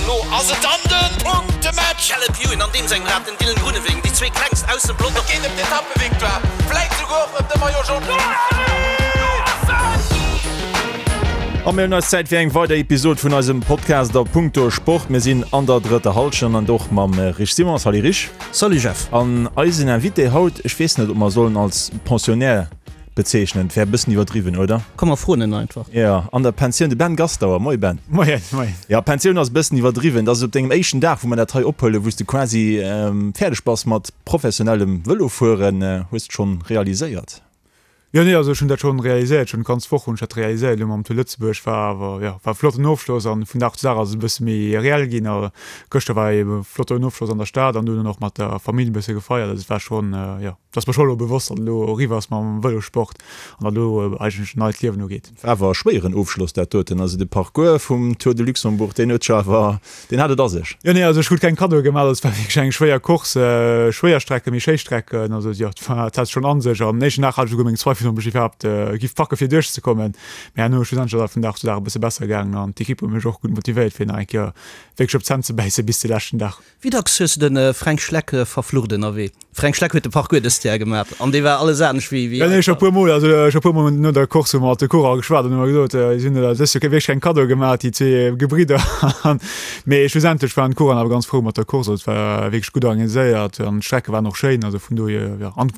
Elo ass et dann de Punktematch! Caleb Ewan an deem sengem Rad, den Dylan Groenewegen, déi zwee klengst aus dem Pelotong. Et geet ëm d'Etappevictoire, vläit souguer och ëm de Maillot Jaune. A mir hunn eis Zäit fir eng weider Episod vun eisem Podcast a Punkto Sport. Mir sinn an der drëtter Hallschent an och mam Rich Simon. Salut Rich. Salut Jeff. An eisen Invité haut, ech weess net, ob mer sollen als Pensionnaire Bezeechnen, wär e bëssen iwwerdriwwen, oder? Komm mer froen en einfach. Jo, an der Pensioun, de Ben Gastauer. Moie Ben. Moien, moien. Jo, Pensioun ass e bëssen iwwerdriwwen. Dat ass op dengem éischten Dag, wou mer dat hei ophuelen, wou s de quasi fäerdeg bass mat professionellem Vëlofueren. Hues de schonn realiséiert? Jo, nee, also ech hunn dat schonn realiséiert, schonn d'ganz Woch hunn ech dat realiséiert elo mam Tour Lëtzebuerg. War awer, jo, war e flotten Ofschloss an vun Dag zu Dag ass et e bësse méi reell ginn. A gëschter war e flotten Ofschloss an der Stad an dunn och mat der Famill e bësse gefeiert. Also et war schonn, jo. Et ass mer scho elo bewosst, datt elo eriwwer ass mam Vëlossport an datt elo eigentlech en neit Liewen ugeet. War awer e schwéieren Ofschloss dat doten. Also de Parcours vum Tour de Luxembourg, deen huet scho awer, deen hat et a sech. Jo, nee, also ech krut keng Kaddoe gemaach, also et war wierklech eng schwéier Course, schwéier Strecken, méi schéi Strecken, also jo, et war, et hat schonn a sech. Am éischten Dag hat ech esouguer meng Zweifel, ob ech iwwerhaapt giff packe fir duerchzekommen, mee herno schlussendlech ass et vun Dag zu Dag e bësse besser gaangen an d'Ekipp huet mech och gutt motivéiert fir nach eng Kéier wierklech op d'Zänn ze bäisse bis de leschten Dag. Wéi dacks hues de den Fränk Schleck verflucht ënnerwee? Fränk Schleck huet de Parcours dëst Jar gemat an dee war alles anescht wéi wéi. Nee, scho puer mol, also scho puer mol no der Course hu mer mat de Coureuren geschwat an hu mer gesot, si hunn dëst Joer wierklech keng Kaddoe gemat, déi zwee Gebridder. Mee schlussendlech waren d'Coureuren awer ganz frou mat der Course, also et war wierklech gutt organiséiert an d'Strecke waren och schéin, also vun dohier, jo, an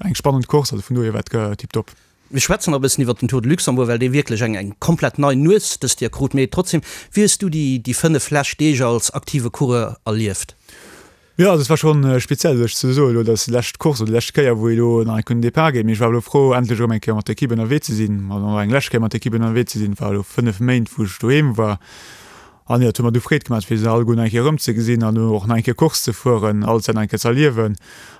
eng spannend Course, also vun dohier war et tiptop. Mir schwätzen nach e bëssen iwwert den Tour de Luxembourg, well dee wierklech eng eng komplett nei Nues dëst Joer krut. Mee trotzdem, wéi hues du déi déi 5 lescht Deeg als aktive Coureur erlieft? Jo, also et war schonn speziell, sech ze soen elo, dat ass déi lescht Course oder déi lescht Kéier, wou ee elo nach eng Kéier un den Depart geet. Mee ech war elo frou, endlech erëm eng Kéier mat der Ekipp ënnerwee ze sinn, also nach eng lescht Kéier mat der Ekipp ënnerwee ze sinn. Et war elo 5 Méint, wou ech doheem war. An jo, et huet mer du Freed gemaach, fir se alleguer nach eng Kéier erëmzegesinn an och nach eng Kéier Course ze fueren, alles dat nach eng Kéier ze erliewen.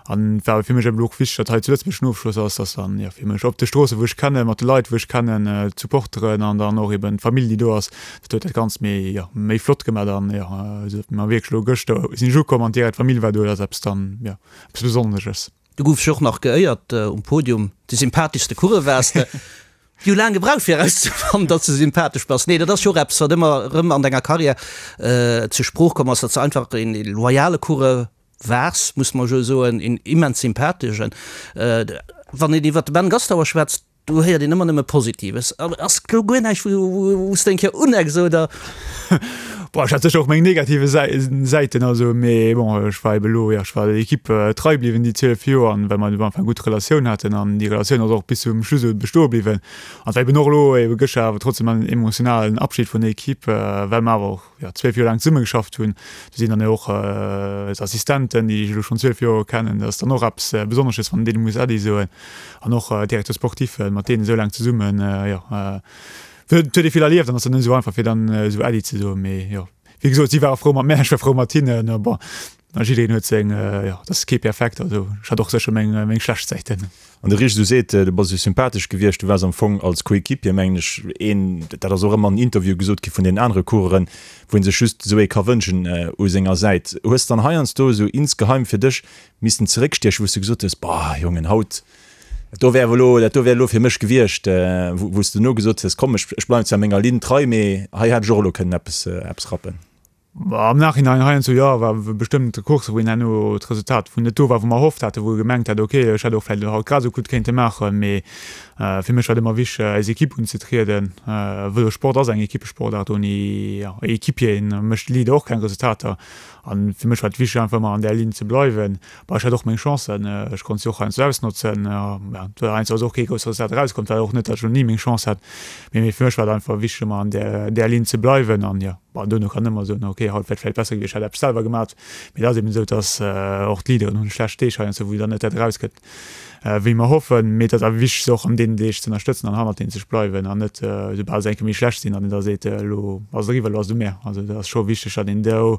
An et war awer fir mech eben och wichteg, datt hei zu Lëtzebuerg den Ofschloss ass, datt dann, jo, fir mech op de Stroosse wou ech kennen, mat de Leit wou ech kennen, d'Supporteren an dann och eben d'Famill déi do ass, dat huet dat Ganzt méi, jo, méi flott gemaach an, jo, esou datt mer wierklech elo gëschter sinn ech ukomm an direkt d'Famill war do, dat ass eppes dann, jo, eppes Besonnesches. Du goufs jo och nach geéiert um Podium, de sympatheschste Coureur waars de. Déi hu laang gebraucht fir erauszefannen, datt s de sympathesch bass. Nee, dat ass jo och eppes, wat ëmmer erëm an denger Karriär zur Sprooch komm ass, datt s de einfach een loyale Coureur waars, muss mer jo soen, een immens sympatheschen. Wann een iwwer de Ben Gastauer schwätzt, do héiert een ëmmer nëmme Positives. Ass do guer näischt, wou s de eng Kéier unecks oder? Bon, ech hat sécher och meng negative Säiten, also, mee bon, ech war ebe lo, jo, ech war der Ekipp trei bliwwen déi 12 Joer an well mer am Anfang gutt Relatioun haten an déi Relatioun ass och bis zum Schluss esou bestoe bliwwen. An et war eben och elo ebe gëschter awer trotzdem en emotionalen Abschied vun der Ekipp, well mer awer och, jo, 12 Joer laang zesummegeschafft hunn. Do sinn dann jo och Assistenten, déi ech elo schonn 12 Joer kennen, dat ass dann och eppes Besonnesches, wann een deene muss Äddi soen an och Directeur sportif, mat deenen esou laang zesummen, jo. Et huet ee vill erlieft an ass dann net esou einfach fir dann esou Äddi ze soen. Mee jo, wéi gesot, si ware frou mat mär, ech war frou mat hinnen. A bon, a jiddereen huet seng, jo, et ass kee perfekt, also ech hat och sécher meng, meng schlecht Säiten. An de Rich, du seet, du bass esou sympathesch gewiescht, du waars am Fong als Coéquipier, mengen ech, een, dat ass och ëmmer an Interviewe gesot gi vun deenen anere Coureuren, wou ee sech just esou ee ka wënschen u senger Säit. Hues dann heiansdo esou insgeheim fir dech missen zeréckstiechen, wou s du gesot hues, Boah, Jongen, haut, Dat do wär awer elo, dat do wär elo fir mech gewiescht, wou s de duerno gesot hues, komm, ech, ech bleiwen zwar menger Linn trei, mee hei hätt ech och elo kënnen eppes, eppes rappen. Am Nachhinein heiansdo jo, war bestëmmt Coursse wou een herno d'Resultat wou net do war wou mer erhofft haten, wou ee gemengt hat, ok ech hätt och vläicht haut grad esou gutt kéinte maachen, mee fir mech war et ëmmer wichteg als Equipe unzetrieden. Vëlossport ass eng Equippesportaart, ouni Equipieren mécht de Leader och keng Resultater an fir mech war et wichteg einfach ëmmer an där Linn ze bleiwen. Bon, ech hat och meng Chancen, ech konnt se och heiansdo ausnotzen. Ja, et war heiansdo ass och kee grousst Resultat erauskomm, et war och net, datt ech elo ni meng Chance hat, mee mee fir mech war et einfach wichteg ëmmer an där där Linn ze bleiwen an jo, bon, duerno kann ëmmer soen, ok, haut wär et vläicht besser gewiescht, ech hätt eppes selwer gemat, mee et ass eben esou, datt och d'Leaderen hunn schlecht Deeg heiansdo, wou dann net dat erauskënnt, wéi mer hoffen, mee et ass awer wichteg se och an deenen Deeg ze ënnerstëtzen an hannert deenen ze bleiwen an net esoubal se eng Kéier méi schlecht sinn, datt een da seet, elo ass et eriwwer, elo ass et u mär. Also et ass scho wichteg, datt een do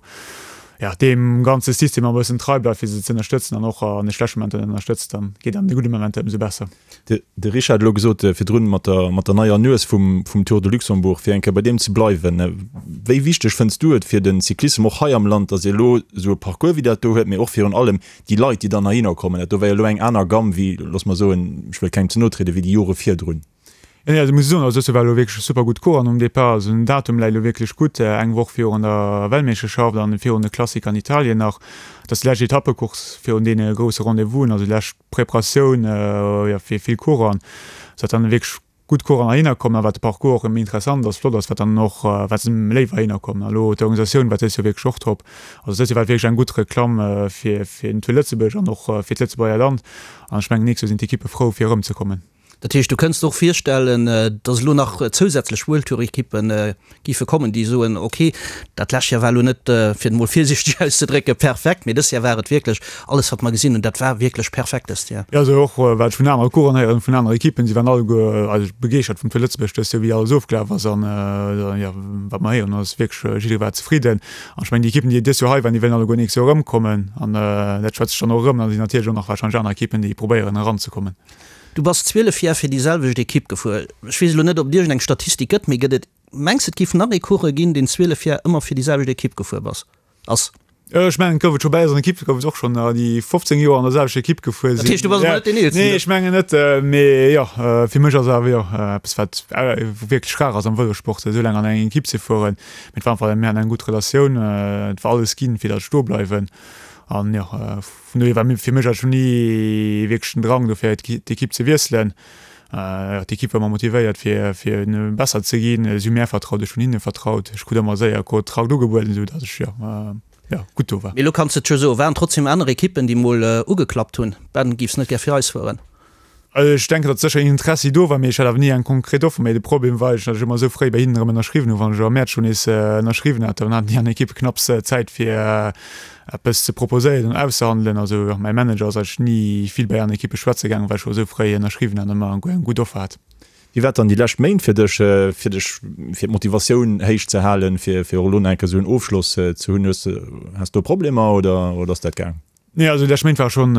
ja, deem ganze System e bëssen trei bleift, fir se ze ënnerstëtzen an och an de schlechte Momenter ënnerstëtzt, dann geet an de gudde Momenter ëmsou besser. De Richard huet elo gesot virdrun mat der, mat der neier Nues vum, vum Tour de Luxembourg, fir eng Kéier bei deem ze bleiwen. Wéi wichteg fënns du et fir de Cyclissem och hei am Land, datt ee elo esou e Parcours wéi dat do huet, mee och virun allem déi Leit, déi dann heihinner kommen? Dat do war jo elo eng aner Gamm wéi, looss mer soen, ech wëll kengem ze no trieden, wéi déi Jore virdrun. Nee, also muss ech soen, also dëst Joer war elo wierklech super gutt Course an um Depart, also den Datum läit elo wierklech gutt, eng Woch virun der Weltmeeschterschaft an virun de Klassiker an Italien nach. Dat ass déi lescht Etappecourse virun deene grousse Rendez-vousen, also déi lescht Preparatioun, jo, fir vill Coursen. Sou datt dann wierklech gutt Coursen heihinner kommen a wat de Parcours och méi interessant ass, flott ass, wat dann och, wat se léiwer heihinner kommen. A lo d'Organisatioun war dëst Joer wierklech och top. Also dëst Joer war wierklech eng gutt Reklamm fir fir den Tour Lëtzebuerg an och fir d'Lëtzebuerger Land. An ech mengen, nächst Joer sinn d'Ekippe frou fir erëmzekommen. Dat heescht, du kënns der och virstellen, datt elo nach zousätzlech World Tour Ekippe géife kommen, déi soen, ok, dat lescht Joer war elo net, fir et emol virsiichteg auszedrécken, perfekt, mee dëst Joer war et wierklech alles, wat mer gesinn hunn, dat war wierklech perfekt dëst Joer. Jo, also och wat ech vun anere Coureuren héieren, vun anere Ekippen, si waren alleguer eigentlech begeeschtert vum Tour Lëtzebuerg dëst Joer, wéi alles ofgelaf ass an jo, wat mer héieren ass wierklech, jidderee war zefridden. An ech mengen, déi Ekippen, déi dëst Joer hei waren, déi wëllen alleguer nächst Joer erëmkommen an dat schwätzt sech dann och erëm. Dann sinn natierlech och nach warscheinlech aner Ekippen, déi probéieren eranzekommen. Du bass 12 Jar fir déi selwecht Ekipp gefuer. Ech weess elo net, ob et iergend eng Statistik gëtt, mee gëtt et, mengs de et géif nach ee Coureur ginn, deen 12 Jar ëmmer fir déi selwecht Ekipp gefuer bass, ass? Ech mengen, et gouf et scho, bäi eiser Ekipp gouf et och schonn der, déi 15 Joer an der selwechter Ekipp gefuer sinn. Dat heescht, du bass emol net deen Eelsten? Nee, ech mengen net, mee jo, fir mech ass et awer jo eppes, wat wierklech rar ass am Vëlossport, esou laang an enger Ekipp ze fueren. Mee et war einfach, mir haten eng gutt Relatioun, et war alles ginn, fir datt ech do bleiwen an jo, Vun dohier war fir mech eigentlech ni wierklech den Drang do fir d'Ekipp ze wiesselen. D'Ekipp war ëmmer motivéiert fir fir besser ze ginn. Si hu mär vertraut, ech hunn hinne vertraut. Ech krut ëmmer séier Kontrakt ugebueden, esou datt ech jo jo gutt do war. Mee elo kanns de et jo soen, waren trotzdem aner Ekippen déi mol ugeklappt hunn, Ben, giffs net gär fir eis fueren? Ech denken, datt sécher een Interessi do war, mee ech hat awer ni eng konkret Offer. Mee de Problem war eigentlech, datt ech ëmmer esou fréi bei hinnen erëm ënnerschriwwen hunn. Wann ech am Mäerz schonn nees ënnerschriwwen hat, dann haten déi aner Ekippe knapps Zäit fir eppes ze proposéieren an auszehandelen. Also mäi Manager ass eigentlech ni vill bei aner Ekippe schwätze gaangen, well ech scho esou fréi ënnerschriwwen hat an ëmmer eng gutt Offer hat. Wéi war dann déi lescht Méint fir dech, fir dech, fir d'Motivatioun héich ze halen, fir fir och elo nach eng Kéier esou en Ofschloss ze hunn? Hues de, has do Problemer oder oder ass dat gaang? Nee, also déi lescht Méint war schonn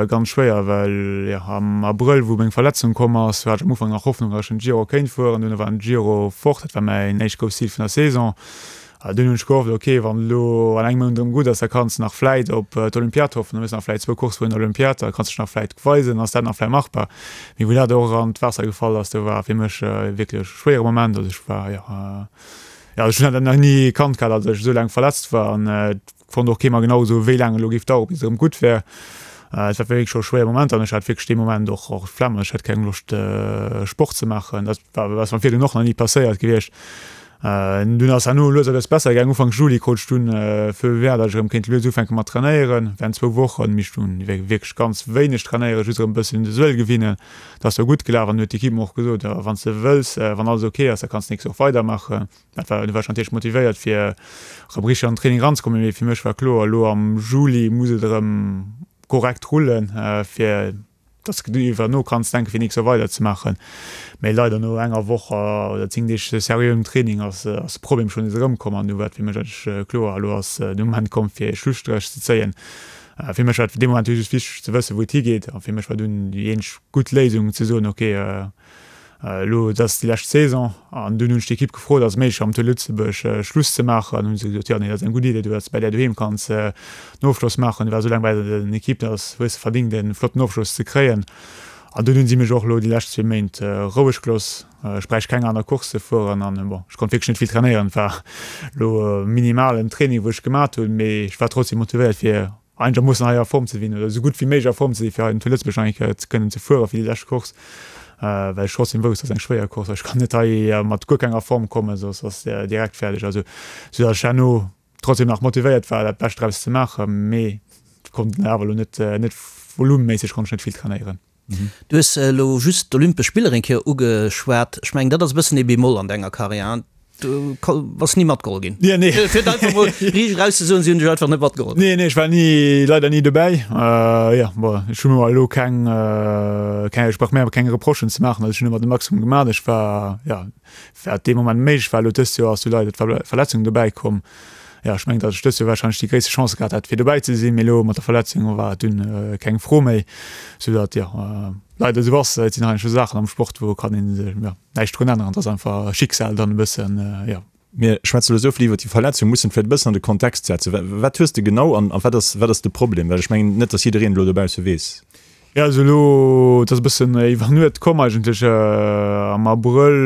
ganz schwéier, well jo am Abrëll, wou meng Verletzung komm ass, hat ech am Ufank nach Hoffnung, datt ech den Giro kéint fueren. Dunn war den Giro fort, dat war mäin éischt grousst Zil vun der Saison. Dunn hunn ech gehofft, ok, wann elo an engem Mount erëm gutt ass, da kanns de nach vläit op d'Olympiad hoffen, da hues de nach vläit zwou Coursse virun der Olympiad, da kanns de dech nach vläit weisen, ass dat nach vläit machbar. Mee wou dat och an d'Waasser gefall ass, do war fir mech wierklech e schwéiere Moment. Also ech war, jo, jo, ech hunn dat nach ni kannt gehat, datt ech esou laang verletzt war an Konnt och kee mer genau soen, wéi laang et elo géif daueren, bis et erëm gutt wär. Et war wierklech scho e schwéiere Moment an ech hat wierklech dee Moment och och d'Flemm. Ech hat keng Loscht, Sport ze maachen. Dat war ass mer virdrun och nach ni passéiert gewiescht. Dunn ass herno lues a lues besser gaangen. Ufank Juli krut ech dunn Feu vert, datt ech erëm kéint lues ufänke mat trainéieren. Während zwou Wochen, mee ech hunn wierklech ganz wéineg trainéieren, just erëm e bëssen un de Suel gewinnen. Dat ass da gutt gelaf an huet d'Ekipp mer och gesot, wann s de wëlls, wann alles ok ass, da kanns de d'nächst Woch weidermaachen. Dat war, du war ech natierlech motivéiert fir erëm richteg an den Training eranzekommen, mee fir mech war kloer, elo am Juli muss et erëm korrekt rullen, fir dass de iwwer no kanns denken, fir nächst Joer weiderzemaachen. Mee leider no enger Woch oder 10 Deeg seriöem Training ass de Problem schonn nees erëmkomm an du war et fir mech eigentlech kloer, elo ass de Moment komm fir e Schlusstréch ze zéien. Fir mech war et dee Moment just wichteg ze wëssen, wou et higeet a fir mech war dunn déi eenzeg gutt Léisung ze soen, ok, Elo, et ass déi lescht Saison an dunn hunn ech d'Ekipp gefrot, ass et méiglech am Tour Lëtzebuerg Schluss ze maachen? An hunn se gesot, jo, nee, dat ass eng gutt Idee, du datt s de bei där doheem kanns den Ofschloss maachen. Du waars esou laang bei der Ekipp, dat ass, hues de verdingt e flotten Ofschloss ze kréien. An dunn hunn si mech och elo déi lescht zwee Méint roueg gelooss. Ech bräicht keng aner Course ze fueren an bon, ech konnt wierklech net vill trainéieren. Et war elo minimalen Training, wou ech gemat hunn, mee ech war trotzdem motivéiert fir einegermoossen hei a Form ze sinn oder esou gutt wéi méiglech a Form ze sinn, fir hei zu Lëtzebuerg nach eng Kéier ze kënnen ze fueren fir déi lescht Course, well ech trotzdem wousst, dat ass eng schwéier Course, ech kann net hei mat guer kenger Form kommen, soss ass direkt fäerdeg. Also sou datt ech herno trotzdem nach motivéiert war, dat Bescht draus ze maachen, mee konnt awer elo net net volumeméisseg konnt ech net vill trainéieren. Du hues elo just d'Olympesch Spiller eng Kéier ugeschwat. Ech mengen, dat ass e bëssen ee Bémol an denger Karriär, hein? Du bass ni matgeholl ginn. Nee, nee. Fir et einfach mol riicht eraus ze soen, si hunn dech einfach net matgeholl. Nee, nee, ech war ni, leider ni dobäi. Jo, bon, ech hu mer elo keng, keng, ech brauch mir awer keng Reprochen ze maachen. Also ech hunn ëmmer de Maximum gemaach. Ech war, jo, wat dee Moment méiglech war. Elo dëst Joer ass jo leider d'Verletzung dobäi komm. Jo, ech mengen, datt ech dëst Joer warscheinlech déi gréisste Chance gehat hätt, fir dobäi ze sinn, mee elo mat der Verletzung war et dunn keng Fro méi, soudatt, jo, leider esou ass. Et sinn heiansdo Saachen am Sport, wou kann een, jo, näischt drun änneren. Et ass einfach Schicksal dann e bëssen, jo. Mir schwätze elo esou vill iwwert déi Verletzung, mussen vläicht e bëssen an de Kontext setzen. Wat hues de genau an wat ass, wat ass de Problem? Well ech mengen net, datt jiddereen elo dobausse weess. Jo, also elo, et ass e bëssen iwwer Nuet komm eigentlech. Am Abrëll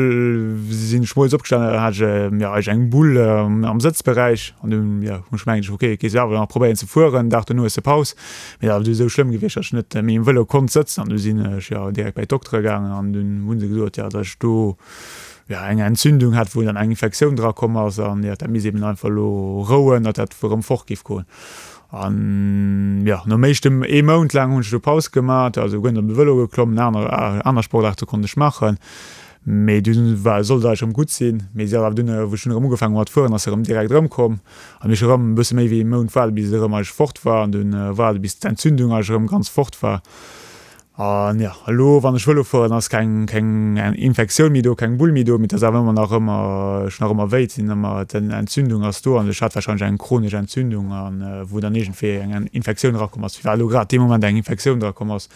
sinn ech moies opgestanen, da hat ech jo eigentlech eng Bull am Sëtzberäich an dunn, jo, hunn ech gemengt, ok, gees du awer nach probéieren ze fueren, Dag dono hues de Paus. Mee dat ass du esou schlëmm gewiescht, datt ech net méi um Vëlo konnt sëtzen an du sinn ech jo direkt bei d'Doktere gaangen an dunn hu se gesot, jo, datt ech do jo eng Entzündung hat, wou dann eng Infektioun dra komm ass an jo, dat misst eben einfach elo rouen, datt dat erëm fort géif goen. An jo, nom éischten ee Mount laang hunn ech do Paus gemat, also guer net op de Vëlo geklommen, aner aner Sportaarte konnt ech maachen, mee dunn war sollt et eigentlech erëm gutt sinn, mee si ass awer dunn, wou ech dunn erëm ugefaangen hu mat fueren, ass se erëm direkt erëmkomm an ech erëm e bësse méi wéi ee Mount waarde bis et erëm eigentlech fort war an dunn waarde bis d'Entzündung eigentlech erëm ganz fort war. An jo, elo wann ech Vëlo fueren, ass keng keng Infektioun méi do, keng Bull méi do, mee et ass awer ëmmer nach ëmmer, ech hunn nach ëmmer wéi, et sinn ëmmer, d'Entzündung ass do an ech hat warscheinlech eng chronesch Entzündung an wou dann iergendwéi eng Infektioun erakomm ass. Firwat elo grad dee Moment eng Infektioun drakomm ass,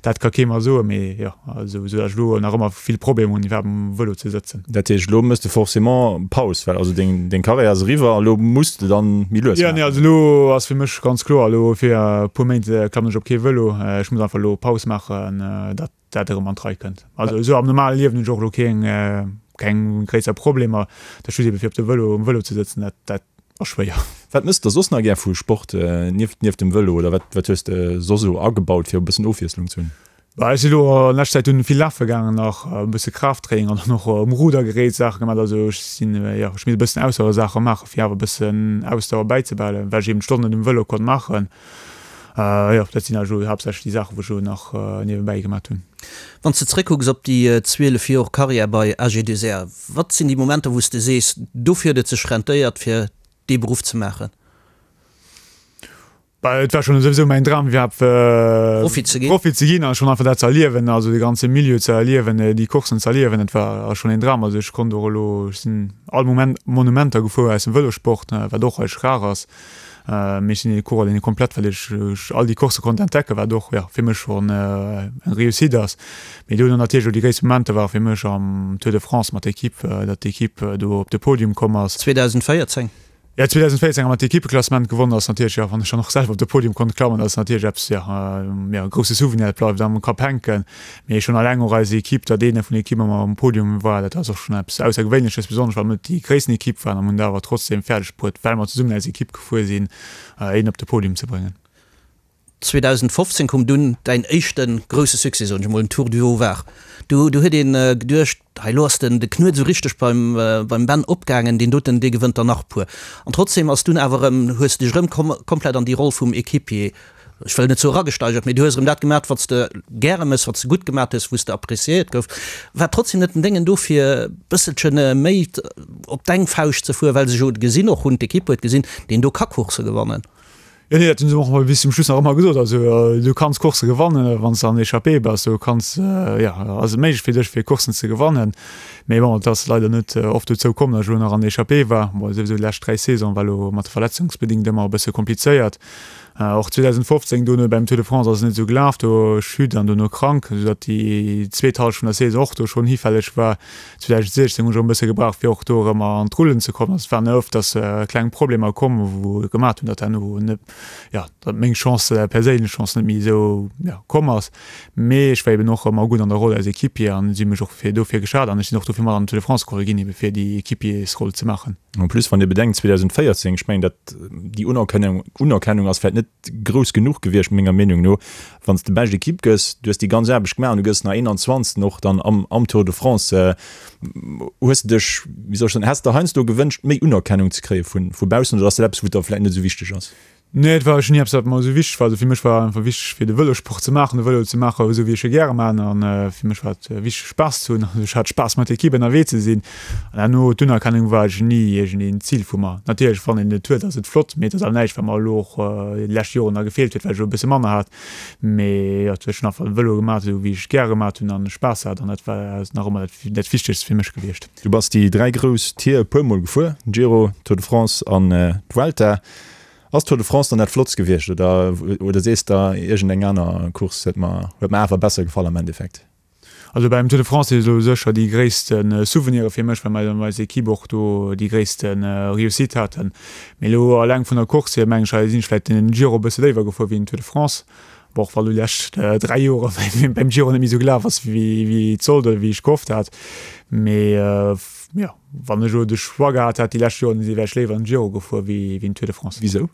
dat ka kee mer soen, mee jo, esou datt ech elo nach ëmmer vill Problemer hunn iwwerhaapt um Vëlo ze sëtzen. Dat heescht, elo méchs de forcément Paus, well also deng deng Karriär ass eriwwer, elo muss de dann méi lues Jo, nee, maachen. also elo ass fir mech ganz kloer, elo fir e puer Méint klammen ech op kee Vëlo. Ech muss einfach elo Paus maachen, datt dat erëm an d'Rei kënnt. Also esou am normale Liewen hunn ech och elo keng keng gréisser Problemer. Dat just ebe fir op de Vëlo, um Vëlo ze sëtzen, dat dat ass schwéier. Wat mëss de soss nach gär vu Sport nieft nieft dem Vëlo oder wat wat hues de soss esou agebaut fir e bëssen Ofwiesslung ze hunn? Bah, ech si lo an leschter Zäit dunn vill lafe gaangen, nach e bësse Kraafttraining an dann och um Rudergerät Saache gemaach. Also ech sinn, jo, ech misst e bëssen Ausdauersaache maachen, fir awer e bëssen Ausdauer bäizebehalen, well ech eben d'Stonnen net um Vëlo konnt maachen. Jo, dat sinn eigentlech elo haaptsächlech déi Saachen, wou ech elo nach niewebäi gemaat hunn. Wann s de zréckkucks op déi 12 Jor Karriär bei AG2R, wat sinn déi Momenter, wou s de sees, dofir huet et sech rentéiert, fir dee Beruff ze maachen? Bah, et war schon souwisou mäin Dram iwwerhaapt Profi ze ginn. Profi ze ginn a schon einfach dat ze erliewen, also de ganze Milieu ze erliewen, déi Courssen ze erliewen, dat war schon een Dram. Also ech konnt och elo, ech sinn all Moment Monumenter gefuer aus dem Vëlossport, wat och eigentlech rar ass. Mee ech sinn ee Coureur, deen komplett, well ech all déi Coursse konnt entdecken, wat och, jo, fir mech schon eng Réussite ass. Mee dono natierlech elo déi gréisst Momenter ware fir mech am Tour de France mat der Equipe, datt d'Equipe do op de Podium komm ass. 2014? Jo, 2014 hu mer d'Equippeklassement gewonnen, ass natierlech, jo, wann ech dann och selwer op de Podium konnt klammen, dat ass natierlech eppes, jo, jo, e grousse Souvenir, dat bleift am Kapp hänken. Mee schonn alleng och eis Equipe, datt een vun der Equipe ëmmer um Podium war, dat ass och schonn eppes Aussergewéinleches, besonnesch well mer net déi gréissten Equipe waren a mer hunn et awer trotzdeem fäerdeg bruet, well mer zesummen als Equipe gefuer sinn, een op de Podium ze bréngen. 2015 koum dunn däin éischte grousse Succès, soen ech emol, den Tour du Haut-Var. Do do huet een geduecht, hei elo ass den de Knuet esou richteg beim beim Ben opgaangen, deen doten dee gewënnt der nach e puer. An trotzdem ass dunn awer erëm, hues de dech erëm komplett an déi Roll vum Equipier, ech wëll net soe eragesteigert, mee du hues erëm dat gemat, wat s de gäre mëss, wat s de gutt gemat hues, wou s de appréciéiert gouf. War trotzdem net den Déngen do fir e bësselche méi op deng Fauscht ze fueren, well se jo gesinn och hunn, d'Equipe huet gesinn, deen do ka Coursse gewannen. Jo, nee, dat hunn se och bis zum Schluss nach ëmmer gesot. Also du kanns Coursse gewannen, wann s de an Echappée bass, du kanns, jo, ass et méiglech fir dech fir Courssen ze gewannen. Mee bon, et ass leider net oft dozou komm, datt ech elo nach an Echappée war. Bon, souwisou déi lescht 3 Saisone war elo mat de verletzungsbedingt ëmmer e bësse komplizéiert. Och 2015 dono beim Tour de France ass et net esou gelaf, do Chute an dono krank, esou datt déi zweet Hallschent vun der Saison och do schonn hifälleg war. 2016 hunn ech och e bësse gebraucht, fir och do erëm an d'Rullen ze kommen. Also et waren ëfters kleng Problemer komm, wou et gemaat hunn, datt herno net, jo, datt meng Chance, perséinlech Chance net méi esou, jo, komm ass. Mee ech war eben och ëmmer gutt an der Roll als Equipier an si hu mech och fir dofir geschat an ech sinn och dofir mat an den Tour de France geholl ginn, ebe fir déi Equipiersroll ze maachen. En plus, wann Dir bedenkt, 2014, ech mengen, dat déi Unerkennung, Unerkennung ass vläicht net grouss genuch gewiescht, menger Meenung no, Wann s de bescht Equipe gëss, du hues déi ganz Aarbecht gemaach an du gëss nach 21. Och dann am am Tour de France, hues de dech, wéi soll ech soen, häss de heiansdo gewënscht, méi Unerkennung ze kréie vu vu baussen oder ass dat eppes, wou der vläicht net esou wichteg ass? Nee, et war ni eppes, wat mer esou wichteg war. Also fir mech war einfach wichteg, fir de Vëlossport ze maachen, de Vëlo ze maachen, esou wéi ech e gäre maachen. An fir mech war et wichteg, Spaass ze hunn. Also ech hat Spaass mat der Equipe ënnerwee ze sinn. An herno d'Unerkennung war eigentlech ni iergendeen Zil vu mer. Natierlech, wann een et huet, ass et flott, mee et ass awer näischt, wat mer elo och déi lescht Joren da gefeelt huet, well ech elo e bësse manner hat. Mee jo, ech hunn einfach de Vëlo gemaach, esou wéi ech et gäre gemaach hunn an Spaass hat an dat war nach ëmmer dat dat Wichtegst fir mech gewiescht. Du bass déi 3 grouss Tier e puer Mol gefuer, Giro, Tour de France an d'Vuelta. Ass Tour de France dann dat flottst gewiescht oder oder sees der iergend eng aner Course huet mer huet mer awer besser gefall am Endeffekt? Also beim Tour de France si elo sécher déi gréisste Souvenire fir mech, well mer eis Equipe och do déi gréisste Réussite haten. Mee elo alleng vun der Course hier mengen ech, sinn ech vläicht den Giro e bësse léiwer gefuer wéi den Tour de France. Bon, och wa lo déi lescht 3 Jore beim Giro net méi esou gelaf ass, wéi et sollt oder wéi ech gehofft hat. Mee jo, wann ech elo de Choix gehat hätt déi lescht Joren, wär ech léiwer den Giro gefuer wéi den Tour de France. Wisou?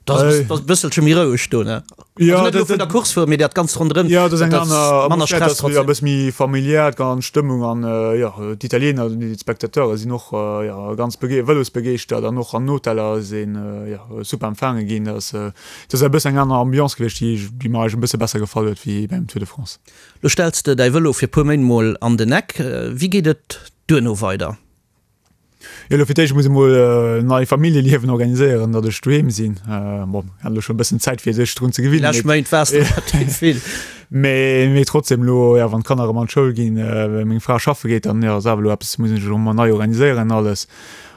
Dat ass e bësselche méi roueg do, ne? Jo, Also net elo vun der Course fueren, mee dat Ganzt ronderëm. Jo, dat ass eng Dat ass aner manner Atmosphär, dat Stress ass jo e trotzdem. bësse méi familiär, d'ganz Stëmmung an jo, d'Italiener, d'Spectateure sinn och jo ganz bege vëlosbegeeschtert an och an Hoteller ass een jo super empfaange ginn. Dat ass dat ass e bëssen eng aner Ambiance gewiescht, déi déi mer eigentlech e bësse besser gefall huet wéi beim Tour de France. Lo stells de däi Vëlo fir puer Méint mol an den Eck. Wéi geet et duerno weider? Jo, elo fir d'éischt muss ech mol nei Familljeliewen organiséieren, datt ech doheem sinn. Bon, hat elo schonn e bëssen Zäit fir sech drun ze Déi gewinnen, lescht Méint waars de relativ vill. mee mee trotzdem elo, jo, wann d'Kanner erëm an d'Schoul ginn, meng Fra schaffe geet, dann jo ass awer elo eppes, muss ech elo emol nei organiséieren alles.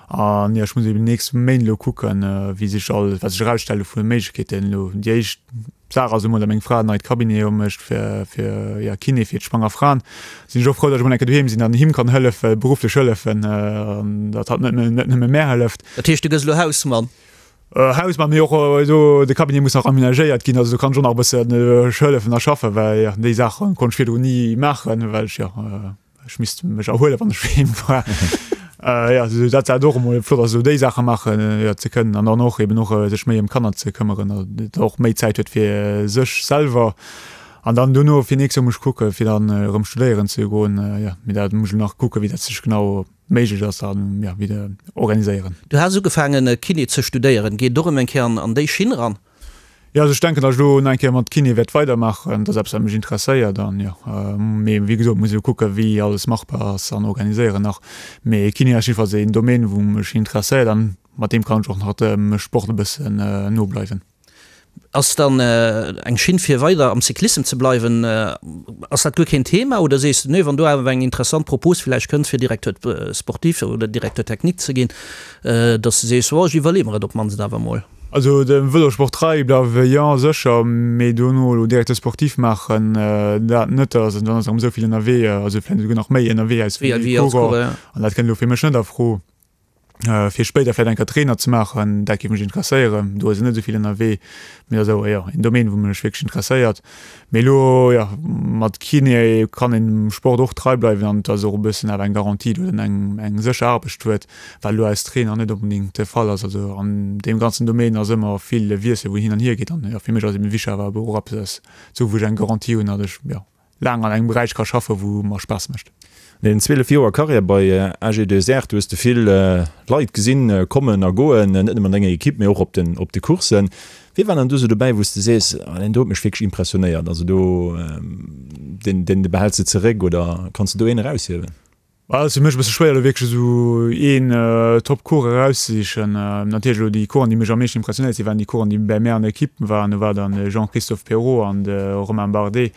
An jo, ech muss eben déi nächst Méint elo kucken, wéi sech alles, wat sech erausstelle vu Méiglechkeeten elo. Déi éischt D'Saach ass emol, datt meng Fra en neit Cabinet opmécht fir, fir, ja, Kiné fir d'schwanger Fraen. Sinn ech och frou, datt ech emol eng Kéier doheem sinn an him kann hëllefen, berufflech hëllefen, an datt hatt net, net nëmme mär hëlleft. Dat heescht, du gëss elo Hausmann? Hausmann, mee och do, de Cabinet muss nach aménagéiert ginn, also do kann ech och nach e bëssen hëllefen a schaffen, well, ja, déi Saache konnt ech virdrun ni maachen, well ech, ja, Ech misst mech erhuelen, wann ech doheem war. Jo, esou dat dat och emol flott ass, esou déi Saache maachen jo ze kënnen an dann och eben och sech méi ëm d'Kanner ze këmmeren an datt och méi Zäit huet fir sech selwer. An dann dono fir nächst Joer muss ech kucke fir dann erëm studéieren ze goen. Jo, mee dat muss ech elo nach kucke wéi dat sech genau méiglech ass an jo wéi de organiséieren. Du has ugefaangen Kiné ze studéieren. Geet et och erëm eng Kéier an déi Schinn eran? Jo, also ech denken, datt ech elo nach eng Kéier mat Kiné wäert weidermaachen. Dat ass eppes, wat mech interesséiert an jo, mee wéi gesot, muss ech elo kucken, wéi alles machbar ass an organiséieren nach. Mee Kiné ass jiddefalls een Domaine, wou mech interesséiert an mat deem kann ech och nach dem Sport e bëssen no bleiwen. Ass dann eng Schinn fir weider am Cyclissem ze bleiwen, ass dat guer keen Thema oder sees de, nee, wann do awer eng interessant Propos villäicht kënnt fir Directeur sportif oder Directeur technique ze ginn, datt s de sees, oh ech iwwerleeë mer et op d'mannst awer emol? Also dem Vëlosport trei bleiwe jo sécher, mee dono elo Directeur sportif maachen, dat net. Also dann ass erëm esou vill ënnerwee, also vläicht esouguer nach méi ënnerwee als wéi Coureur. An dat kënnt elo fir mech net a Fro. Fir spéider vläicht eng Kéier Trainer ze maachen, dat géif mech interesséieren. Do ass een net esou vill ënnerwee, mee dat ass awer jo een Domaine, wou mech wierklech interesséiert. Mee elo, jo, mat Kiné kann een dem Sport och trei bleiwen an et ass och e bëssen awer eng Garantie, datt een eng eng sécher Aarbecht huet. Wat elo als Trainer net onbedéngt de Fall ass. Also an deem ganzen Domaine ass ëmmer vill Wiessel, wou hin an hier geet. An jo, fir mech ass eben wichteg awer och eppes ze hu wou ech eng Garantie hunn, datt ech jo laang an engem Beräich ka schaffen, wou mer Spaass mécht. An deenen 12 Joer Karriär bei AG2R, du hues de vill Leit gesinn kommen a goen, net nëmmen an denger Ekipp, mee och op den op de Courssen. Wie war dann do sou dobäi, wou s de sees, ah deen do huet mech wierklech impressionéiert, also do deen deen behäls de zeréck oder kanns de do een eraushiewen? Et ass fir mech e bësse schwéier elo wierklech esou een Top Coureur erauszesichen. Natierlech elo déi Coureuren déi mech am meeschten impressionéiert sinn, waren déi Coureuren déi bäi mär an der Equipe waren. Do war dann de Jean-Christophe Péraud an de Romain Bardet.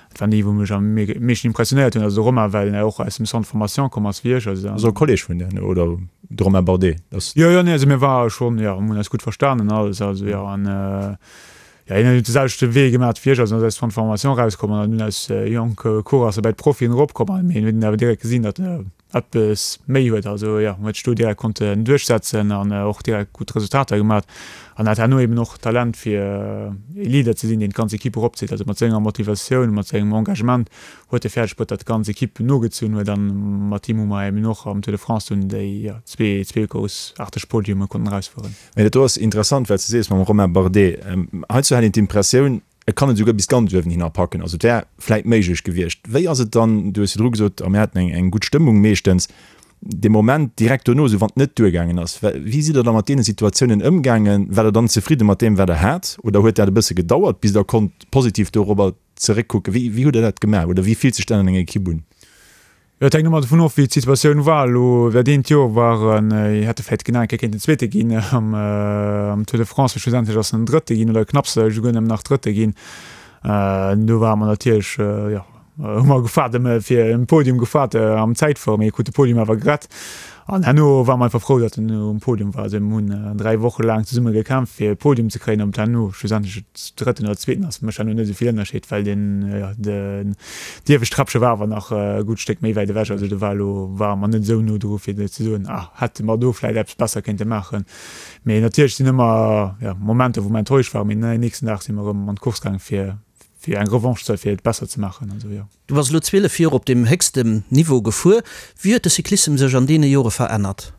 Dat waren déi wou mech am meeschten impressionéiert hunn. Also de Romain well en och aus dem Centre de formation komm ass wéi ech. Also Also e Kolleg vun dir oder de Romain Bardet ass? Jo jo nee also mir ware schonn jo mir hunn eis gutt verstanen an alles also jo an Jo, hien huet de selwechte Wee gemat wéi ech, also en ass aus Centre de formation erauskomm an dunn als jonke Coureur ass e bäi d'Profien eropkomm an mee hien huet awer direkt gesinn, datt e eppes méi huet, also jo, huet sech do direkt konnten duerchsetzen an och direkt gutt Resultater gemat an hat herno eben och d'Talent fir e Leader ze sinn, deen d'ganz Equipe eropzitt, also mat senger Motivatioun, mat sengem Engagement huet e fäerdeg bruet, datt d'ganz Equipe nogezunn huet an mat him hu mer eben och am Tour de France dunn déi zwee groussaarteg Podiume konnten erausfueren. Mee dat do ass interessant, wat s de sees mam Romain Bardet. Heizou hat een d'Impressioun, e kann et esouguer bis ganz uewen hinner packen. Also et wär vläit méiglech gewiescht. Wéi ass et dann, du hues virdru gesot, a mir haten eng eng gutt Stëmmung meeschtens, dee Moment direkt dono, esou wann et net duergaangen ass, wéi sidd Der da mat deene Situatiounen ëmgaangen? Waart Der dann zefridde mat deem, wat Der hat, oder huet dat e bësse gedauert, bis Der konnt positiv dorobber zeréckkucken? Wéi wéi hutt Der dat gemaach oder wéi fillt sech dat an enger Ekipp un? Jo, et hänkt ëmmer dovun of, wéi d'Situatioun war. Elo dat eent Joer war en, hätt e vläicht genau eng Kéier kéinten Zweete ginn am am Tour de France, mee schlussendlech ass en Drëtte ginn oder knapps esouguer nëmmen nach Drëtte ginn. Do ware mer natierlech, jo, hu mer gefaart ëm fir en Podium gefaart am Zäitfuere, mee krut de Podium awer gerett. An herno ware mer einfach frou, datt en um Podium war. Also mir hunn 3 Woche laang zesumme gekämpft fir e Podium ze kréien. Ob et herno schlussendlech Drëtten oder Zweeten ass, mécht herno net esou vill Ënnerscheed, well den, jo, den iewescht Träppche war awer nach e gutt Stéck méi wäit ewech. Also do war elo, ware mer net esou no dru fir ze soen, ah, hätte mer do vläicht eppes besser kéinte maachen. Mee natierlech sinn ëmmer, jo, Momenter, wou mer enttäuscht waren, mee den nächsten Dag si mer erëm an d'Course gaangen, fir, fir eng Revanche ze huelen, fir et besser ze maachen. Also, jo. Du bass elo 12 Joer op deem héchstem Niveau gefuer. Wéi huet de Cyclissem sech an deene Jore verännert?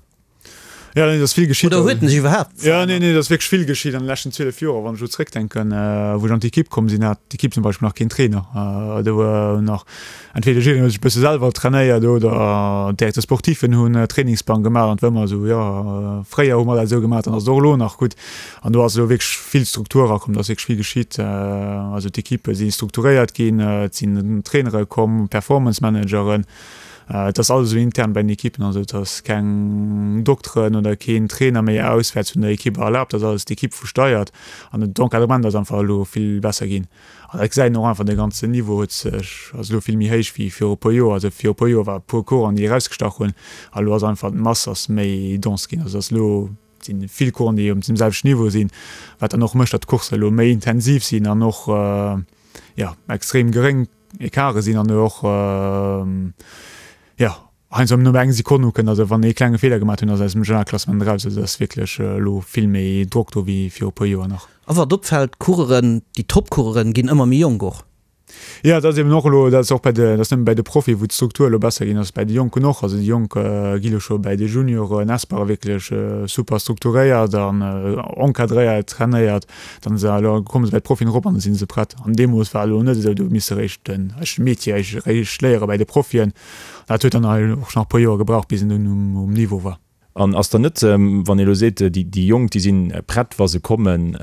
Jo, nee, et ass vill geschitt. Oder huet en sech iwwerhaapt verännert? Jo, nee, nee, et ass wierklech vill geschitt an de leschten 12 Joer. Wann ech elo zréckdenken, wou ech an d'Ekipp komm sinn, hat d'Ekipp zum Beispill nach keen Trainer. Do war nach entweder jiddereen huet sech e bësse selwer trainéiert oder d'Directeur sportifen hunn Trainingsplang gemaach an et war ëmmer esou, jo, fréier hu mer dat esou gemaach, dann ass et och elo nach gutt. An do ass elo wierklech vill Struktur erakomm, do ass wierklech vill geschitt. Also d'Ekippe si strukturéiert ginn, et sinn Trainere komm, Performance Manageren. Et ass alles elo intern bei den Ekippen, also et ass keng Dokteren oder keen Trainer méi auswäerts vun der Ekipp erlaabt, dat ass alles d'Ekipp wou steiert. An d'Encadrement ass einfach elo vill besser ginn. An dat gesäit een och einfach, de ganzen Niveau huet sech, ass elo vill méi héich wéi viru e puer Joer. Also viru e puer Joer war e puer Coursen déi erausgestach hunn, a elo ass einfach d'Mass ass méi dense ginn. Also et ass elo Et sinn vill Coursen, déi um selwechten Niveau sinn, wat dann och mécht, datt d'Coursse elo méi intensiv sinn an och jo extrem geréng Ecarte sinn an och jo heiansdo nëmme eng Sekonn ukënnt. Also wann ee klenge Feeler gemaach hunn, ass aus dem Generalklassement eraus. Also et ass wierklech elo vill méi Drock do wéi viru e puer Joer nach. A wat opfält, d'Coureuren, déi Top-Coureuren ginn ëmmer méi jonk och. Jo, dat ass eben och elo, dat ass och bei de, dat ass net nëmme bäi de Profie wou d'Struktur elo besser ginn ass, bäi de Jonken och. Also déi Jonk gi elo scho bäi de Junioren, Espoire wierklech super strukturéiert an encadréiert, trainéiert. Dann se elo komme se bäi d'Profien erop an da si se prett. An deemools war elo net esou, do huet misse réischt den eischte Métier réischt léiere bäi de Profien. Dat huet dann och nach e puer Joer gebraucht, bis en dunn um Niveau war. An ass dann net, wann ee elo seet, déi Jonk, déi si prett, wa se kommen,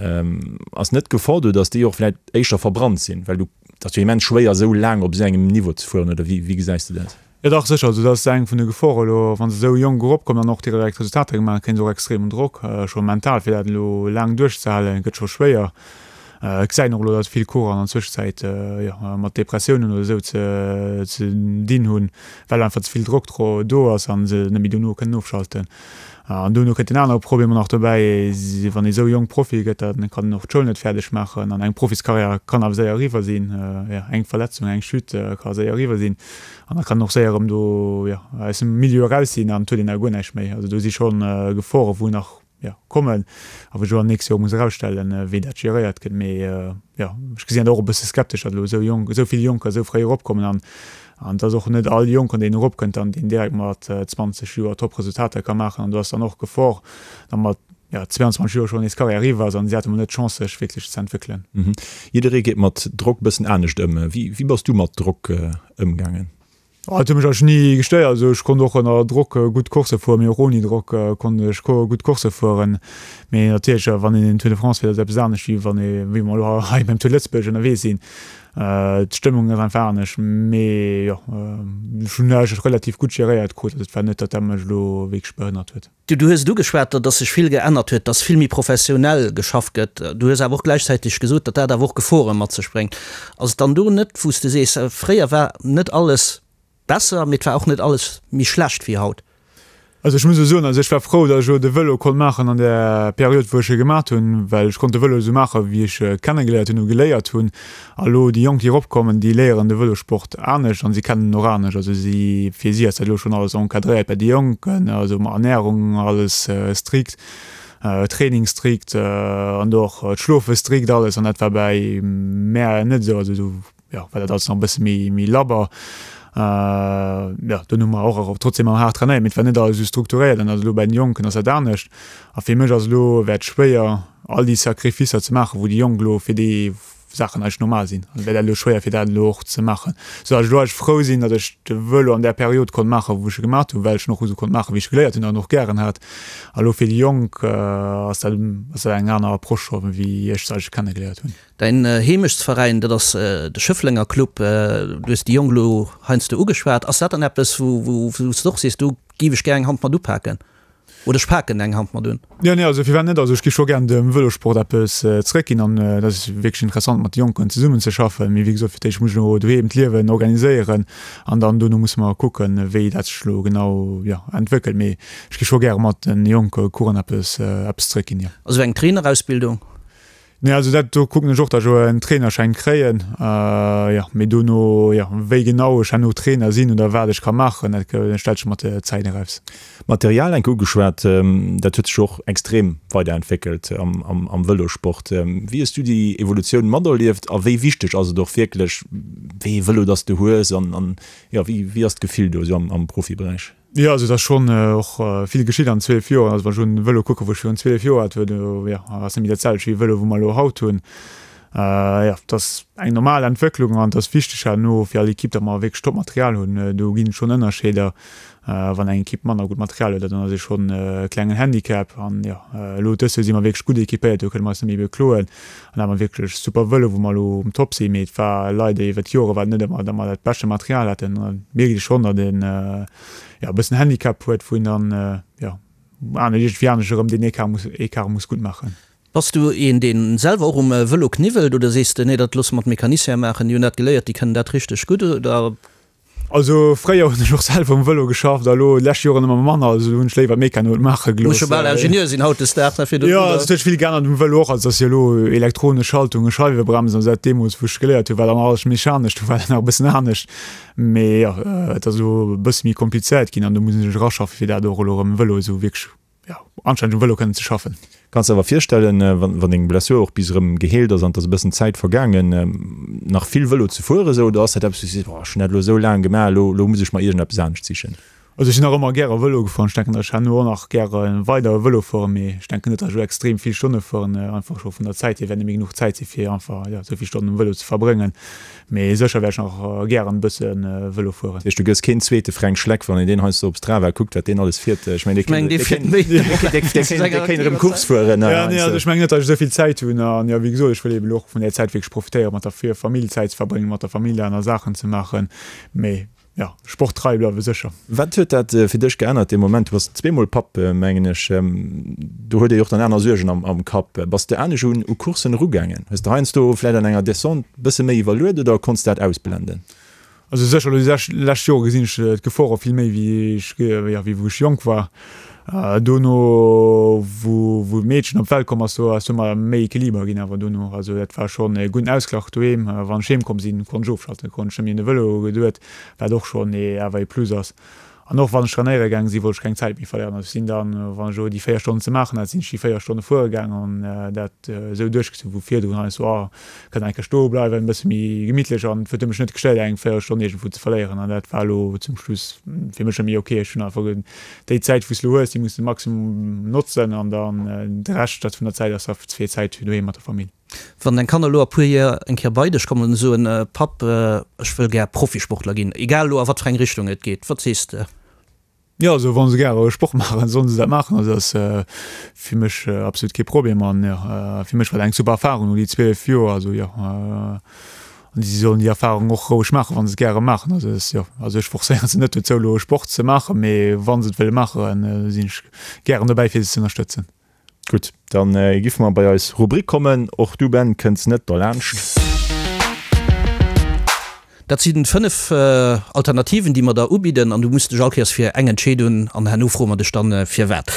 ass net d'Gefor do, datt déi och vläicht éischter verbrannt sinn? Well du, et ass jo immens schwéier, esou laang op esou engem Niveau ze fueren, oder wéi gesäis de dat? Jo dach, sécher. Also dat ass eng vun de Gefore elo, wa se esou jonk eropkommen an och direkt Resultater gemaach hunn, kréie se och extremen Drock, scho mental, fir dat elo laang duerchzehalen, gëtt scho schwéier. Et gesäit een och elo, datt vill Coureuren an der Zwëschenzäit jo mat Depressiounen oder esou ze dinn hunn, well einfach ze vill Drock do ass a se net méi dono kënnen ofschalten. An dono kënnt en anere Problem och nach dobäi, wann ee sou jonk Profi gëtt, da kann en och d'Schoul net fäerdeg maachen an eng Profiskarriär kann awer séier eriwwer sinn. Jo, eng Verletzung, eng Chute ka séier eriwwer sinn an da kann en och séier erëm do, jo, aus dem Milieu eraus sinn an et huet een da guer näischt méi. Also do si scho Gefore wou nach jo, kommen a wou ech och an nächst Joer muss erausstellen, wéi dat geréiert gëtt. Mee jo, ech gesinn dat och e bësse skeptesch, datt elo esou jonk, esou vill Jonker esou fréi eropkommen an an et ass och net all Jonken, deen eropkënnt an deen direkt mat 20 Joer Top-Resultater ka maachen. An do ass dann och d'Gefor, datt mat, jo, 22 Joer schonn nees Karriär eriwwer ass an si hate mol net d'Chance, sech wierklech ze entwéckelen. Jidderee geet mat Drock e bëssen anescht ëm. Wéi, wéi bass du mat Drock ëmgaangen? Et huet mech eigentlech ni gestéiert. Also ech konnt och ënner Drock gutt Coursse fueren, mee och ouni Drock konnt ech gutt Coursse fueren. Mee natierlech, wann een den Tour de France fiert, ass et eppes anescht, wéi wann ee, wéi mer elo hei beim Tour de Lëtzebuerg ënnerwee sinn. D'Stëmmung ass einfach anescht. Mee jo, ech hunn eigentlech relativ gutt geréiert krut. Also et war net, datt dat mech elo wierklech behënnert huet. Du hues et ugeschwat, datt sech vill geännert huet, datt vill méi professionell geschafft gëtt. Du hues awer och gläichzäiteg gesot, datt dat awer och Gefore mat sech bréngt. Ass et dann do net, wou s de sees, fréier war net alles besser, mee et war och net alles méi schlecht wéi haut? Also ech muss elo soen, also ech war frou, datt ech elo de Vëlo konnt maachen an där Period, wou ech e gemaat hunn, well ech konnt de Vëlo esou maachen, wéi ech e kennegeléiert hunn, geléiert hunn. A lo déi Jonk, déi eropkommen, déi léieren de Vëlossport anescht an si kennen en och anescht. Also si, fir si ass dat elo schonn alles encadréiert bei de Jonken, also mat Ernärung alles strikt, Training strikt an do och d'Schlofe strikt alles an dat war bäi mär net esou. Also do, jo, war dat alles nach e bësse méi, méi labber. Jo, dunn hu mer och trotzdem ëmmer haart trainéiert, mee et war net alles esou strukturéiert an also elo bäi den Jonken ass dat anescht. A fir mech ass elo, wär et schwéier all déi Sacrificer ze maachen, wou déi Jonk elo fir déi Saachen eigentlech normal sinn. Also wär dat elo schwéier fir dat elo och ze maachen. Sou datt ech elo eigentlech frou sinn, datt ech de Vëlo an där Period konnt maachen, wou ech e gemaat hunn, well ech en och esou konnt maachen, wéi ech e geléiert hunn an och gären hat. A elo fir déi Jonk ass dat ass dat eng aner Approche scho wéi ech se eigentlech kennegeléiert hunn. Däin Heemechtsveräin, dat ass de Schëfflenger Club. Du hues déi Jonk elo heiansdo ugeschwat. Ass dat dann eppes, wou wou s de och sees, do géif ech gär eng Hand mat upaken? Oder ech paken eng Hand mat un. Jo, nee, also firwat net? Also ech gi scho gären dem Vëlosport eppes zeréckginn an et ass wierklech interessant mat de Jonken zesummen ze schaffen. Mee wéi gesot, fir d'éischt muss ech elo doheem d'Liewen organiséieren an dann dono musse mer kucken, wéi dat sech elo genau, jo, entwéckelt. Mee ech gi scho gäre mat de jonke Coureuren eppes, eppes zeréckginn, jo. Also eng Trainerausbildung? Nee, also dat do kucken ech och, datt ech elo en Trainerschäin kréien. Jo, mee dono, jo, wéi genau ech herno Trainer sinn oder wat ech ka maachen, dat stellt sech mat der Zäit eraus. Material enke ugeschwat, dat huet sech och extrem weiderentwéckelt am Vëlosport. Wéi hues du déi Evolutioun materlieft a wéi wichteg ass et och wierklech, wéi ee Vëlo dass du hues an jo, wéi ass d'Gefill do esou am Profiberäich? Jo, also et ass schonn och vill geschitt an 12 Joer. Also wann ech un de Vëlo kucken, wou ech virun 12 Joer hat, do jo, ass net méi dat selwecht wéi e Vëlo, wou mer elo haut hunn. Jo, et ass eng normal Entwécklung an et ass wichteg herno fir all Ekipp, datt mer wierklech Top-Material hunn. Do ginn et schonn Ënnerscheeder. Wann eng Ekipp manner gutt Material huet, dann ass ee schonn e klengen Handicap. An jo, elo dës Joer si mer wierklech gutt ekipéiert, do kënne mer eis net méi bekloen. An da hu mer wierklech super Vëlo, wou mer elo um Top sinn. Mee et war leider iwwer d'Jore war et net ëmmer, datt mer dat beschte Material haten. An da mierkt ee schonn, datt een jo e bëssen Handicap huet, wou een dann jo aner iergendwéi anescht erëm deen Ecart muss Ecart muss gutt maachen. Bass du een, dee selwer och um Vëlo kniwwelt oder sees de, nee, dat loosse mer d'Mecaniciene maachen, déi hunn dat geléiert, déi kënnen dat richteg gutt oder? Also fréier hunn ech och selwer um Vëlo geschafft a lo déi lescht Joren ëmmer manner, also do hunn ech léiwer d'Meccanoen maache gelooss. Muss jo bal Ingenieur sinn hautdesdaags, ne, fir do. Jo, also et huet sech vill geännert um Vëlo och, also et ass jo elo elektronesch Schaltungen, Scheiwebremsen, also dat deemools wou ech geléiert hunn, war dann alles mechanesch, do war dat nach e bëssen anescht, mee jo, et ass elo e bësse méi komplizéiert ginn an do muss ee sech eraschaffen, fir dat och elo erëm um Vëlo esou wierklech jo, anstänneg um Vëlo kënnen ze schaffen. Kanns de awer virstellen, wann deng Blessur och bis erëm geheelt ass an et ass e bëssen Zäit vergaangen, nach vill Vëlo ze fueren esou, oder ass dat eppes wou du sees, boah, ech hunn dat elo esou laang gemaach, elo elo muss ech mer iergendeppes anescht sichen? Also ech sinn nach ëmmer gäre Vëlo gefuer an ech denken, datt ech herno och nach gäre weider Vëlo fueren, mee ech denken net, datt ech elo extrem vill Stonne fueren, einfach scho vun der Zäit hier wäert net méi genuch Zäit si fir einfach, jo, esou vill Stonnen um Vëlo ze verbrëngen. Mee sécher wäert ech nach gären e bësse Vëlo fueren. Dat heescht, du gëss keen zweete Fränk Schleck, wann een deen heiansdo op Strava kuckt, wat deen alles fiert. Ech mengen, dee kéint erëm Course fueren. Jo, nee, also ech mengen net, datt ech esou vill Zäit hunn. An jo, wéi gesot, ech wëll eeben elo och vun där Zäit wierklech profitéieren, mat der Famill Zäit ze verbréngen, mat der Famill aner Saachen ze maachen. Mee Jo, sporttrei bleiwe sécher. Wat huet dat fir dech geännert dee Moment? Du bass zweemol Papp, mengen ech. Do huet ee jo och dann aner Suergen am Kapp. Bass de anescht un u Courssen erugaangen? Hues de heiansdo vläicht an enger Descente bësse méi iwwerluet oder konns dat ausblenden? Also sécher, elo déi lescht Jore gesinn ech d'Gefore vill méi wéi ech, jo, wéi wou ech jonk war. Dono wou wou d'Meedchen op d'Welt komm ass, do ass ëmmer méi Equiliber ginn awer dono. Also dat war schonn e gudden Ausglach doheem. Wann ech heem komm sinn, konnt ech ofschalten, konnt ech net méi un de Vëlo geduet, wat och schonn ee awer ee Plus ass. An och wann ech trainéiere gaang sinn, wollt ech keng Zäit méi verléieren. Also ech sinn dann, wann ech elo déi 4 Stonnen ze maachen hat, sinn ech déi 4 Stonne fuere gaang an dat esou duerchgezunn, wou virdrun heiansdo, oh, Kann eng Kéier stoe bleiwen, e bësse méi gemittlech an et huet mech net gestéiert eng Véierelstonn iergendwou ze verléieren an dat war elo zum Schluss fir mech net méi ok. Ech hunn einfach déi Zäit wou s elo hues, déi muss de maximum notzen an dann de Rescht dat vun der Zäit ass da fir Zäit fir doheem mat der Famill. Wann deng Kanner elo a puer Joer eng Kéier bei dech kommen an soen, Papp, ech wëll gär Profisportler ginn, egal elo a wat fir eng Richtung et geet, wat sees de? Jo, also wa se gäre Sport maachen, sollen se dat maachen. Also dat ass fir mech absolut kee Problem an jo, fir mech war dat eng super Erfarung no déi 12 Joer. Also jo, an si sollen déi Erfarung och roueg maachen, wa se et gäre maachen. Also dat ass jo, also ech forcéiere se net dozou elo Sport ze maachen, mee wa se et wëlle maachen, sinn ech gären dobäi fir se ze ënnerstëtzen. Gutt, dann giffe mer bei eis Rubrik kommen. Och du Ben kënns net derlaanscht. Dat si 5 Alternativen, déi mer der ubidden an du muss dech all Kéiers fir eng entscheedun an herno froe mer dech dann firwat.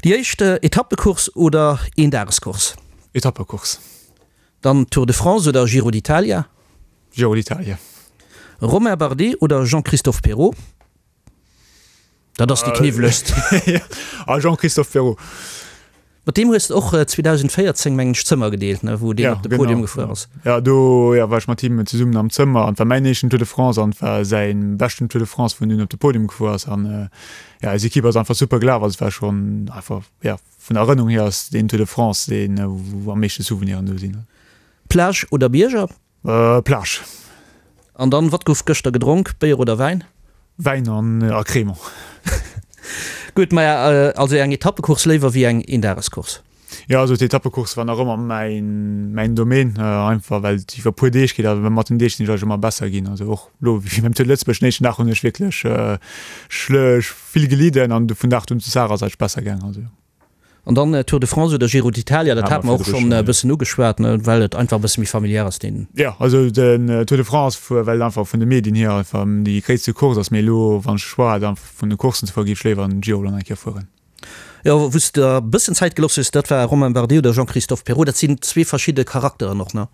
Déi éischt, Etappecourse oder Eendagescourse? Etappecourse. Dann Tour de France oder Giro d'Italia? Giro d'Italia. Romain Bardet oder Jean-Christophe Péraud? Dat ass déi kniwwelegst. A Jean-Christophe Péraud. Mat deem hues de och 2014, mengen ech, d'Zëmmer gedeelt, ne, wou deen op de Podium gefuer ass. Jo, do jo, war ech mat him zesummen am Zëmmer an et war mäin éischten Tour de France an et war säi beschten Tour de France, wou en dunn op de Podium gefuer ass. An jo, eis Ekipp ass einfach super gelaf. Also et war schonn einfach, jo, vun der Erënnerung hier ass deen Tour de France deen, wou am meeschte Souveniren do sinn. Plage oder Bierger? Plage. An dann, wat gouf gëschter gedronk, Béier oder Wäin? Wäin an a Crémant. Gutt, maja, also eng Etappecourse léiwer wéi eng Eendagescourse? Jo, also d'Etappecourse war nach ëmmer mäin, mäin Domaine, einfach well et iwwer puer Deeg geet a mat den Deeg sinn ech eigentlech ëmmer besser ginn. Also och elo wéi beim Tour de Lëtzebuerg, den éischten Dag hunn ech wierklech vill gelidden an vun Dag un zu Saach ass et eigentlech besser gaangen. Also jo. An dann Tour de France oder Giro d'Italia, dat hate mer och schonn e bëssen ugeschwat, well et einfach e bësse méi familiär ass deen. Jo, also den Tour de France, well et einfach vun de Medien hier einfach déi gréisste Course ass. Mee elo wann ech de Choix hätt einfach vun de Courssen ze fueren, géif ech léiwer den Giro dann eng Kéier fueren. Jo, wou s de der e bëssen Zäit gelooss hues, dat war Romain Bardet oder Jean-Christophe Péraud. Dat sinn zwee verschidde Charakteren och, ne?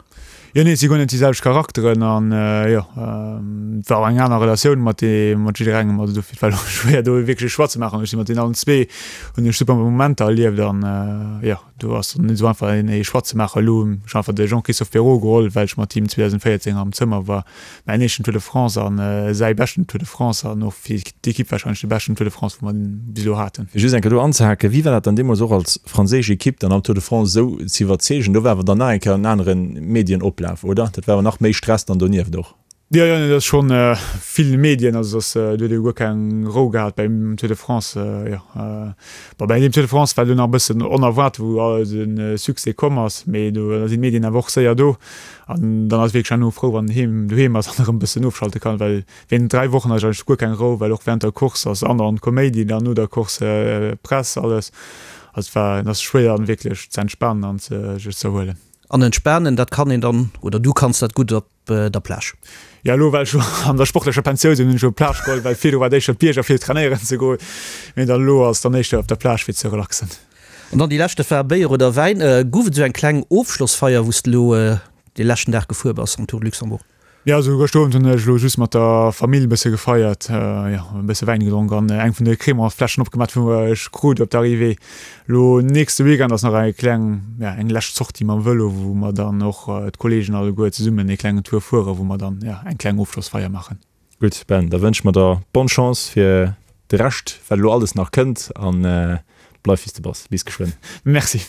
Jo, nee, et si guer net déi selwecht Charakteren an jo, et war och eng aner Relatioun mat dee mat jidderengem. Also dofir, et war elo schwéier do wierklech e Choix ze maachen. Ech si mat deenen allen zwee hunn ech super Momenter erlieft an jo, do ass dann net esou einfach een ee Choix ze maachen. Elo hunn ech einfach de Jean-Christophe Péraud geholl, well ech mat him 2014 am Zëmmer war. Mäin éischten Tour de France an säi beschten Tour de France an och fir d'Ekipp warscheinlech de beschten Tour de France, wou mer bis elo haten. Fir just eng Kéier do anzehaken, Wéi war dat dann deemools och als franséisch Ekipp dann am Tour de France esou ze iwwerzeegen? Do war awer dann nach eng Kéier en anere Medienoplaf, oder? Dat war awer nach méi Stress dann donieft och. Jo, jo, dat ass schonn vill Medien, also dass do huet ee guer keng Rou gehat beim Tour de France, jo. Bon, bei deem Tour de France war elo nach e bëssen onerwaart, wou de Succès komm ass, mee do sinn d'Medien awer och séier do. An dann ass wierklech herno frou, wann en heem, doheem ass an erëm e bëssen ofschalte kann, well wéinst 3 Wochen ass eigentlech guer keng Rou, well och während der Course ass andauernd Koméidi, dann no der Course Press, alles. Also et war, et ass schwéier dann wierklech ze entspanen an sech ze erhuelen. An entspanen, dat kann een dann, oder du kanns dat gutt op der Plage. Jo, elo well ech elo an der sportlecher Pensioun sinn, hunn ech elo d'Plage geholl, well virdru war et éischter d'Bierger fir trainéieren ze goen, mee dann elo ass et dann éischter op der Plage fir ze relaxen. An dann déi lescht, dat war Béier oder Wäin. Gouf et esou eng kleng Ofschlossfeier, wou s de elo dee leschten Dag gefuer bass am Tour de Luxembourg? Jo, also gëschter Owend hunn ech elo just mat der Famill e bësse gefeiert, jo, e bësse Wäin gedronk an eng vun de Crémant-Fläschen opgemaach, wou ech krut op der Arrivée. Elo nächste Weekend ass nach eng kleng, ja, eng lescht Sortie mam Vëlo, wou mer dann och d'Kolleegen alleguer zesummen ee klengen Tour fueren, wou mer dann, ja, eng kleng Ofschlossfeier maachen. Gutt Ben, da wënsche mer der bonne Chance fir de Rescht, wat elo alles nach kënnt an bleif wéi s de bass. Bis geschwënn. Merci.